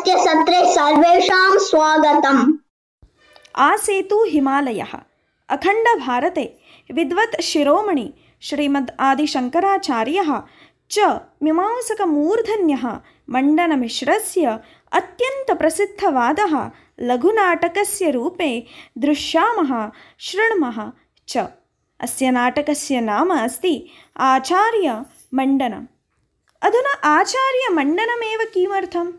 आजस्य सत्रे सर्वेषां स्वागतम्। आसेतु हिमालयः। अखण्डभारते विद्वत् शिरोमणि श्रीमद् आदिशङ्कराचार्यः च मीमांसकमूर्धन्यः मण्डनमिश्रस्य अत्यन्तप्रसिद्धवादः लघुनाटकस्य रूपे दृश्यामः शृण्मः च। अस्य नाटकस्य नाम अस्ति आचार्यमण्डनम्। अधुना आचार्यमण्डनमेव किमर्थम्?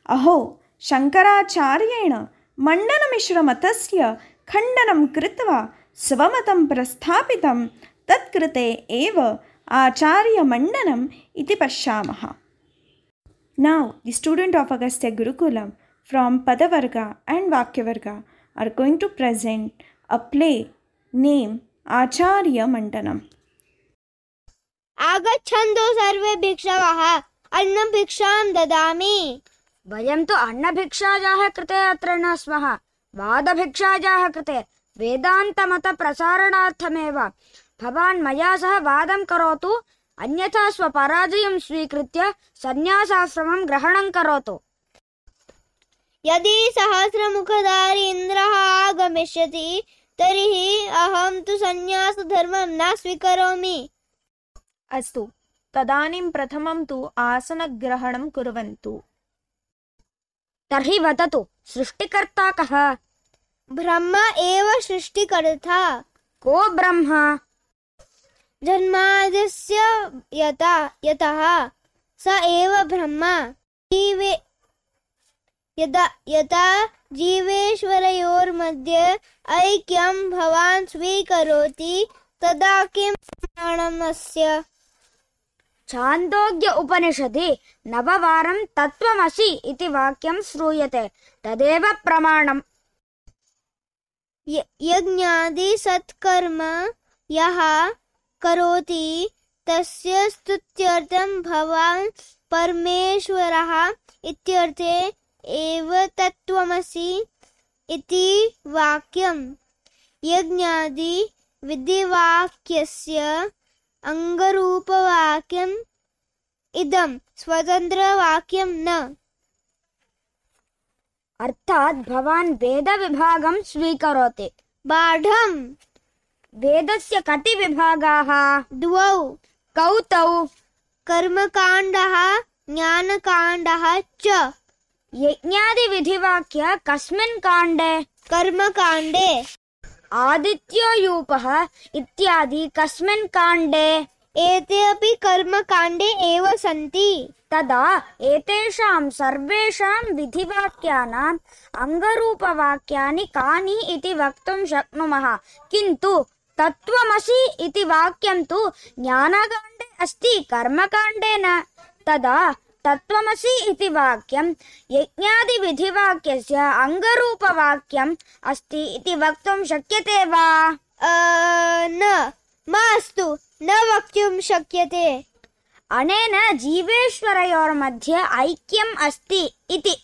अहो, शङ्कराचार्येण मण्डनमिश्रमतस्य खण्डनं कृत्वा स्वमतं प्रस्थापितं, तत्कृते एव आचार्यमण्डनम् इति पश्यामः। Now, the students of Agastya Gurukulam from Padavarga and Vakyavarga are going to present a play named Acharya Mandanam. आगच्छन्तु सर्वे भिक्षवः, अन्नभिक्षां ददामि। वयं तु अन्नभिक्षायाः कृते अत्र न स्मः, वादभिक्षायाः कृते, वेदान्तमतप्रसारणार्थमेव। भवान् मया सह वादं करोतु, अन्यथा स्वपराजयं स्वीकृत्य सन्न्यासाश्रमं ग्रहणं करोतु। यदि सहस्रमुखधारी इन्द्रः आगमिष्यति तर्हि अहं तु सन्न्यासधर्मं न स्वीकरोमि। अस्तु, तदानीं प्रथमं तु आसनग्रहणं कुर्वन्तु। तर्हि वदतु, सृष्टिकर्ता कः? ब्रह्म एव सृष्टिकर्ता। को ब्रह्मा? जन्माद्यस्य यतः स एव ब्रह्मा। यदा जीवेश्वरयोर्मध्ये ऐक्यं भवान् स्वीकरोति तदा किं प्रमाणमस्य? छान्दोग्य उपनिषदि नववारं तत्त्वमसि इति वाक्यं श्रूयते, तदेव प्रमाणम्। यज्ञादि सत्कर्म यः करोति तस्य स्तुत्यर्थं भवान् परमेश्वरः इत्यर्थे एव तत्त्वमसि इति वाक्यम्। यज्ञादि विधिवाक्यस्य अङ्गरूपवाक्यम् इदं स्वतन्त्रवाक्यं न। अर्थात् भवान् वेदविभागं स्वीकरोति। बाढम्। वेदस्य कति विभागाः? द्वौ। कौ तौ? कर्मकाण्डः ज्ञानकाण्डः च। यज्ञादिविधिवाक्य कस्मिन् काण्डे? कर्मकाण्डे। आदित्योयूपः इत्यादि कस्मिन् काण्डे? एते अपि कर्मकाण्डे एव सन्ति। तदा एतेषां सर्वेषां विधिवाक्यानाम् अङ्गरूपवाक्यानि कानि इति वक्तुं शक्नुमः। किन्तु तत्त्वमसि इति वाक्यं तु ज्ञानकाण्डे अस्ति, कर्मकाण्डे न। तदा तत्त्वमसि इति वाक्यं यज्ञादिविधिवाक्यस्य अङ्गरूपवाक्यम् अस्ति इति वक्तुं शक्यते वा? न, मास्तु, न वक्तुं शक्यते। अनेन जीवेश्वरयोर्मध्ये ऐक्यम् अस्ति इति।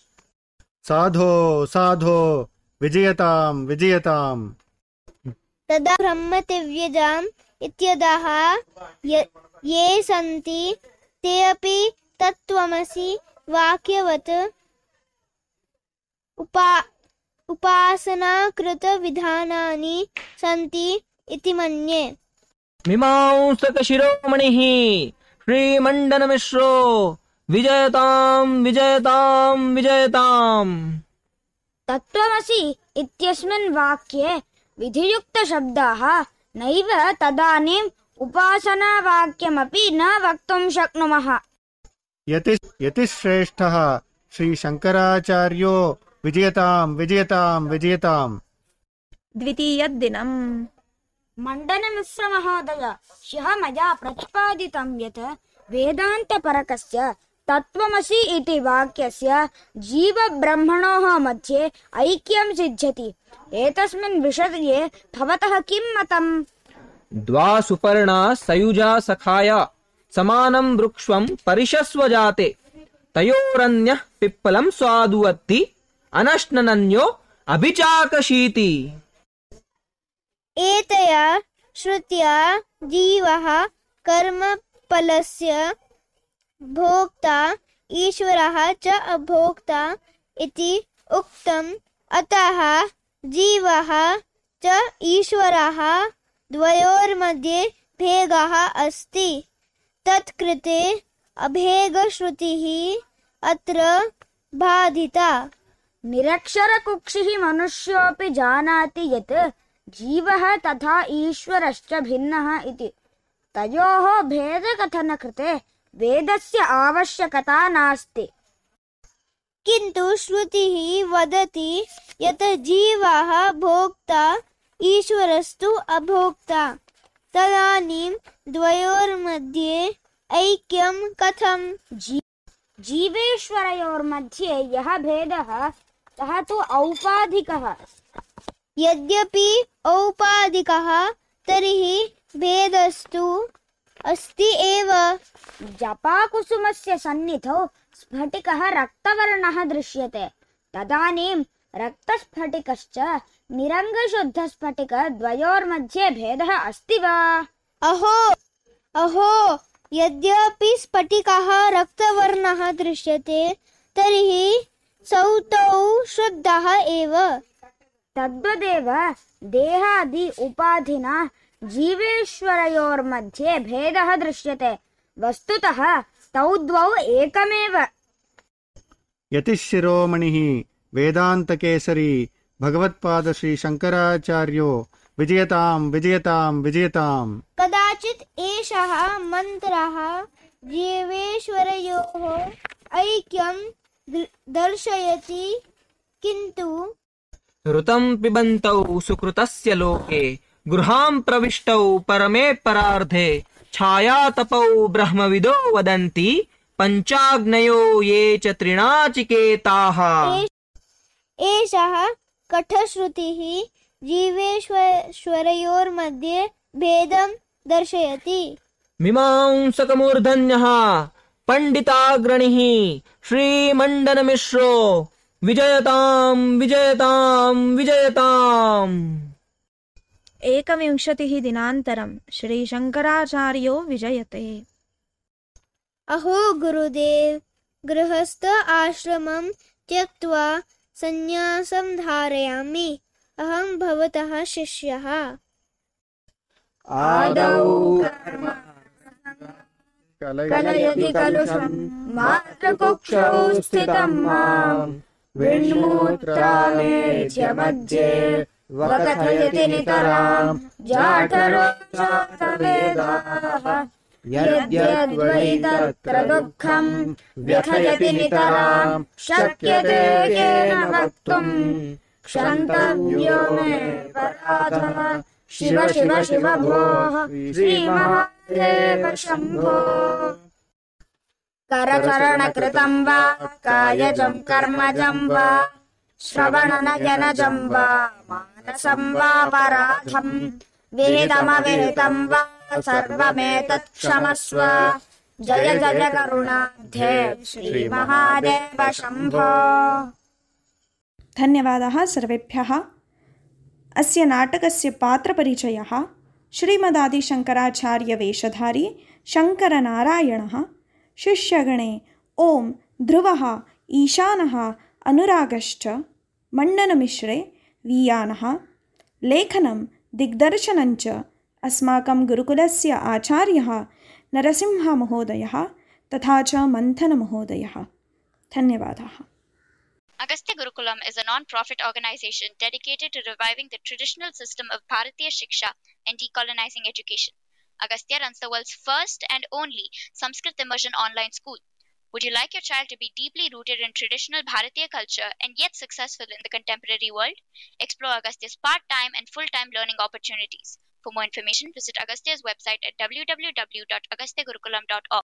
साधो साधो विजयतां विजयताम्। तदा ब्रह्मदिव्यजाम् इत्यतः ये सन्ति ते अपि तत्त्वमसि वाक्यवत् उपासनाकृतविधानानि सन्ति इति मन्ये। मीमांसकशिरोमणिः श्रीमण्डनमिश्रो विजयतां विजयतां विजयताम्। तत्त्वमसि इत्यस्मिन् वाक्ये विधियुक्तशब्दाः नैव, तदानीम् उपासनावाक्यमपि न वक्तुं शक्नुमः। यतिश्रेष्ठः श्रीशङ्कराचार्यो विजयतां विजयतां विजयताम्। द्वितीयदिनम्। मण्डनमिश्रमहोदय, ह्यः मया प्रतिपादितं यत् वेदान्तपरकस्य तत्त्वमसि इति वाक्यस्य जीवब्रह्मणोः मध्ये ऐक्यं सिद्ध्यति। एतस्मिन् विषये भवतः किं मतम्? द्वा सुपर्णा सयुजा सखाया समानं वृक्ष्वं परिशस्व जाते, तयोरन्यः पिप्पलं स्वादुवत्ति अनश्नन्यो अभिचाकशीति। एतया श्रुत्या जीवः कर्मफलस्य भोक्ता ईश्वरः च अभोक्ता इति उक्तम्। अतः जीवः च ईश्वरः द्वयोर्मध्ये भेदः अस्ति। तत्कृते अभेदश्रुतिः अत्र बाधिता। निरक्षरकुक्षिः मनुष्योऽपि जानाति यत् जीवः तथा ईश्वरश्च भिन्नः इति। तयोः भेदकथनकृते वेदस्य आवश्यकता नास्ति। किन्तु श्रुतिः वदति यत् जीवः भोक्ता ईश्वरस्तु अभोक्ता। तदानीं द्वयोर्मध्ये ऐक्यं कथम्? जीवेश्वरयोर्मध्ये यः भेदः सः तु औपाधिकः। यद्यपि औपाधिकः तर्हि भेदस्तु अस्ति एव। जपाकुसुमस्य सन्निधौ स्फटिकः रक्तवर्णः दृश्यते। तदानीं रक्तस्फटिकश्च निरङ्गशुद्धस्फटिकद्वयोर्मध्ये भेदः अस्ति वा? अहो यद्यपि स्फटिकः रक्तवर्णः दृश्यते तर्हि सौ तौ शुद्धः एव। तद्वदेव देहादि उपाधिना जीवेश्वरयोर्मध्ये भेदः दृश्यते। वस्तुतः तौ द्वौ एकमेव। यतिशिरोमणिः वेदान्तकेसरी भगवत्पाद श्री शंकराचार्यो विजयताम् विजयताम् विजयताम्। कदाचित् एषः मन्त्रः जीवेश्वरयोः ऐक्यं दर्शयति। किन्तु ऋतं पिबन्तौ सुकृतस्य लोके गृहां प्रविष्टौ परमे परार्धे छायातपौ ब्रह्मविदो वदन्ति पञ्चाग्नयो ये च त्रिणाचिकेताः। एषः कठश्रुतिः जीवेश्वरयोर्मध्ये भेदं दर्शयति। मीमांसकमूर्धन्यः पण्डिताग्रणिः श्रीमण्डनमिश्रो विजयताम् विजयताम् विजयताम्। 21 दिनान्तरं श्रीशङ्कराचार्यो विजयते। अहो गुरुदेव, गृहस्थ आश्रमं त्यक्त्वा संन्यासं धारयामि। अहं भवतः शिष्यः। आदौ कलयति कलुषं मातृकुक्षौ स्थितं मां विण्मूत्रामेत्य मध्ये वकथयति नितरां जाठरो जातवेदाः। यद्यद्वै तत्र दुःखं व्यथयति नितरां शक्यते केन वक्तुम्। क्षन्तव्यो मे पराधः शिव शिव शिव भोः श्रीमहादेव शम्भो। करचरणकृतं वा कायजं कर्मजं वा श्रवणनयनजं वा मानसं वा पराधं विहितमविहितं वा सर्वमेतत् क्षमस्व। जय जय करुणाब्धे श्रीमहादेव शम्भो। धन्यवादाः सर्वेभ्यः। अस्य नाटकस्य पात्रपरिचयः श्रीमदादिशङ्कराचार्यवेषधारी शङ्करनारायणः। शिष्यगणे ओं ध्रुवः, ईशानः, अनुरागश्च, मण्डनमिश्रे वीयानः। लेखनं दिग्दर्शनञ्च अस्माकं गुरुकुलस्य आचार्यः नरसिंहमहोदयः तथा च मन्थनमहोदयः। धन्यवादाः। Agastya Gurukulam is a non-profit organization dedicated to reviving the traditional system of Bharatiya Shiksha and decolonizing education. Agastya runs the world's first and only Sanskrit immersion online school. Would you like your child to be deeply rooted in traditional Bharatiya culture and yet successful in the contemporary world? Explore Agastya's part-time and full-time learning opportunities. For more information, visit Agastya's website at www.agastyagurukulam.org.